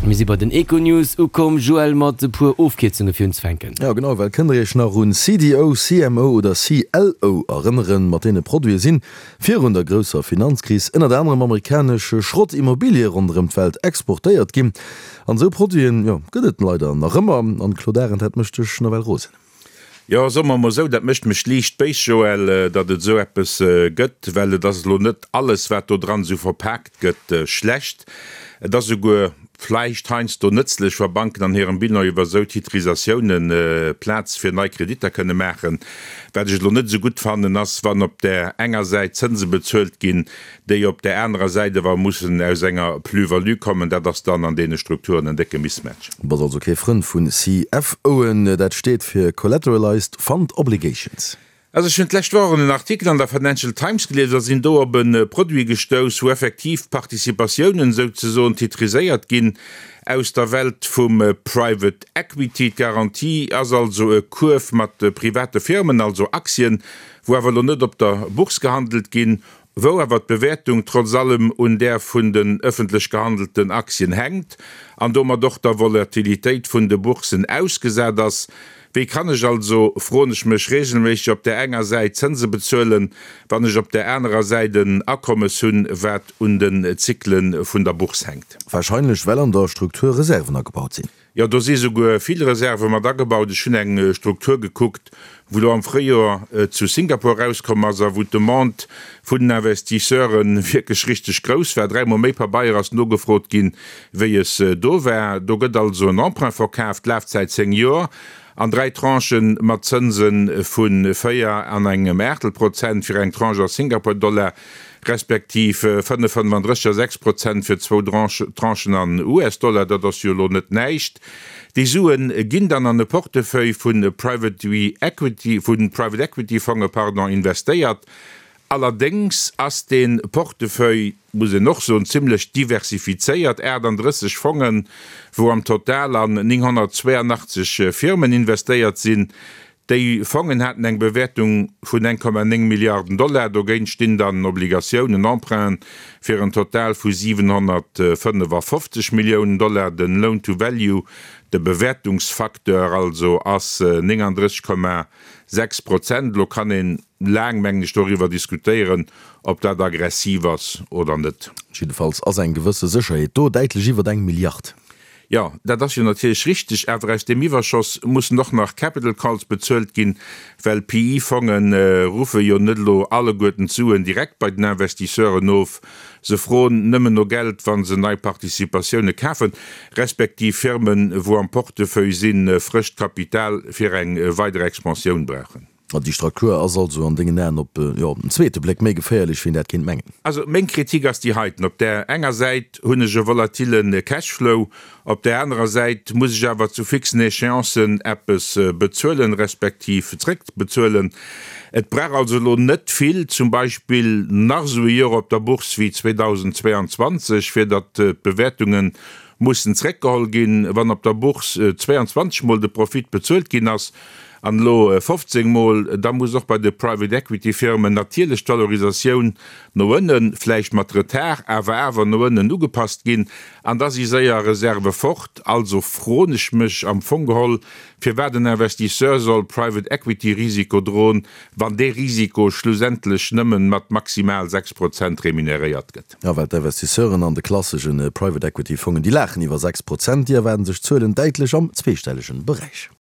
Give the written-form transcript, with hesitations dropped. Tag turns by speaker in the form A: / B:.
A: Mir si bei den Econews ukomm, Joël, mat e puer Ofkierzunge fir unzefänken.
B: Jo genau, well kënnt der iech nach un CDO, CMO oder CLO erënneren? Mat deene Produite sinn virun der grousser Finanzkris ënnert anerem amerikanesch Schrottimmobilie ronderëm d'Welt exportéiert ginn. An esou Produiten, jo, gëtt et leider nach ëmmer. An Claude Arend, dat mécht dech nawell rosen.
C: Jo, soe mer emol esou, dat mécht mech liicht béis, Joël, datt et esou eppes gëtt, well et ass elo net alles, wat do dran esou verpaakt gëtt, schlecht. Et ass esouguer vläicht heiansdo nëtzlech, wa Banken an hirem Bilan iwwer esou Titrisatiounen Plaz fir nei Kreditter kënne maachen. Wat ech elo net esou gutt fannen, ass, wann op där enger Säit Zënse bezuelt ginn, déi op där anerer Säit awer mussen aus enger Plus-value kommen, dat ass dann an deene Strukturen en décke Mismatch.
B: Du bass also kee Frënd vun CFOen, dat steet fir Collateralized Fund Obligations.
C: Also ech hunn d'lescht Woch en Artikel an der Financial Times gelies a sinn do op e Produit gestouss, wou effektiv Participatiounen souzesoen titriséiert ginn aus der Welt vum Private Equity. D'Garantie ass also e Kuerf mat private Firmen, also Aktien, wou awer elo net op der Bourse gehandelt ginn, wou awer d'Bewäertung trotz allem un där vun den ëffentlech gehandelten Aktien hänkt an domat och der Volatilitéit vun de Boursen ausgesat ass. Wéi kann ech also, froen ech mech regelméisseg, op där enger Säit Zënse bezuelen, wann ech op där anerer Säit en Akommes hunn, wat un den Zykle vun der Bourse hänkt?
B: Wahrscheinlech well an der Struktur Reserven agebaut sinn.
C: Jo, do si souguer vill Reserve mat agebaut. Ech hunn eng Struktur gekuckt, wou elo am Fréijoer zu Singapur erauskomm ass a wou d'Demande vun den Investisseure wierklech richteg grouss war. Dräimol méi Pabeier ass nogefrot ginn, wéi es do war. Do gëtt also en Emprunt verkaaft, Lafzäit 10 Joer, an dräi Tranchen mat Zënse vu 4 an engem Aachtel Prozent fir eng Tranche a Singapur-Dollar, respektiv 5,35 a 6 Prozent fir zwou Tranchen an US-Dollar, dat ass jo elo net näischt. Déi Sue ginn dann an e Portefeuille vu Private Equity Fonge pardon, investéiert. Allerdéngs ass dee Portefeuille, muss een och soen, zimlech diversifizéiert, 38 Fongen, wou am Total an 982 Firmen investéiert sinn. Déi Fongen haten eng Bewäertung vun 1,9 Milliarden Dollar. Dogéint stinn dann Obligatiounen, Emprunten, fir en Total vu 755 Milliounen Dollar. Den Loan to Value, de Bewäertungsfacteur also, ass 39,6 Prozent. Elo kann een laang, mengen ech, doriwwer diskutéieren, ob dat aggressiv ass oder net.
B: Jiddefalls ass eng gewësse Sécherheet do, däitlech iwwert eng Milliard.
C: Jo, dat ass jo natierlech richteg, awer aus deem Iwwerschoss mussen och nach Capital Calls bezuelt ginn, well PE-Fonge ruffe jo net elo alleguerten d'Suen direkt bei den Investisseuren of. Se froen nëmmen no Geld, wa se nei Participatioune kafen, respektiv Firmen, wou am Portefeuille sinn, frëscht Kapital fir eng weider Expansioun brauchen.
B: Déi Struktur ass also an dengen Aen op, jo, op den zweete Bléck méi geféierlech, wéi een dat kéint mengen.
C: Also meng Kritik ass déi heiten, Op där enger Säit hunn ech e volatile Cashflow, op där anerer Säit muss ech awer zu fixen Échéancen eppes bezuelen, respektiv zréckbezuelen. Et brauch also elo net vill, zum Beispill nach esou e Joer op der Bourse wéi 2022, fir datt d'Bewäertunge mussen zréckgeholl ginn. Wann op der Bourse 22 mol de Profit bezuelt ginn ass, An elo 15 Mol, da muss och bei de Private Equity Firmen natierlech d'Valorisatioun no ënnen, vläicht mat Retard, awer awer no ënnen ugepasst ginn. An da si séier Reserve fort. Also froen ech mech am Fong geholl, firwat en Investisseur soll Private Equity Risiko droen, wann dee Risiko schlussendlech nëmmen mat maximal 6 Prozent remuneréiert gëtt.
B: Jo, well d'Investisseuren an de klassesche Private Equity Fongen, déi laachen iwwer 6 Prozent, déi erwaarden sech Zuelen däitlech am zweestellegen Beräich.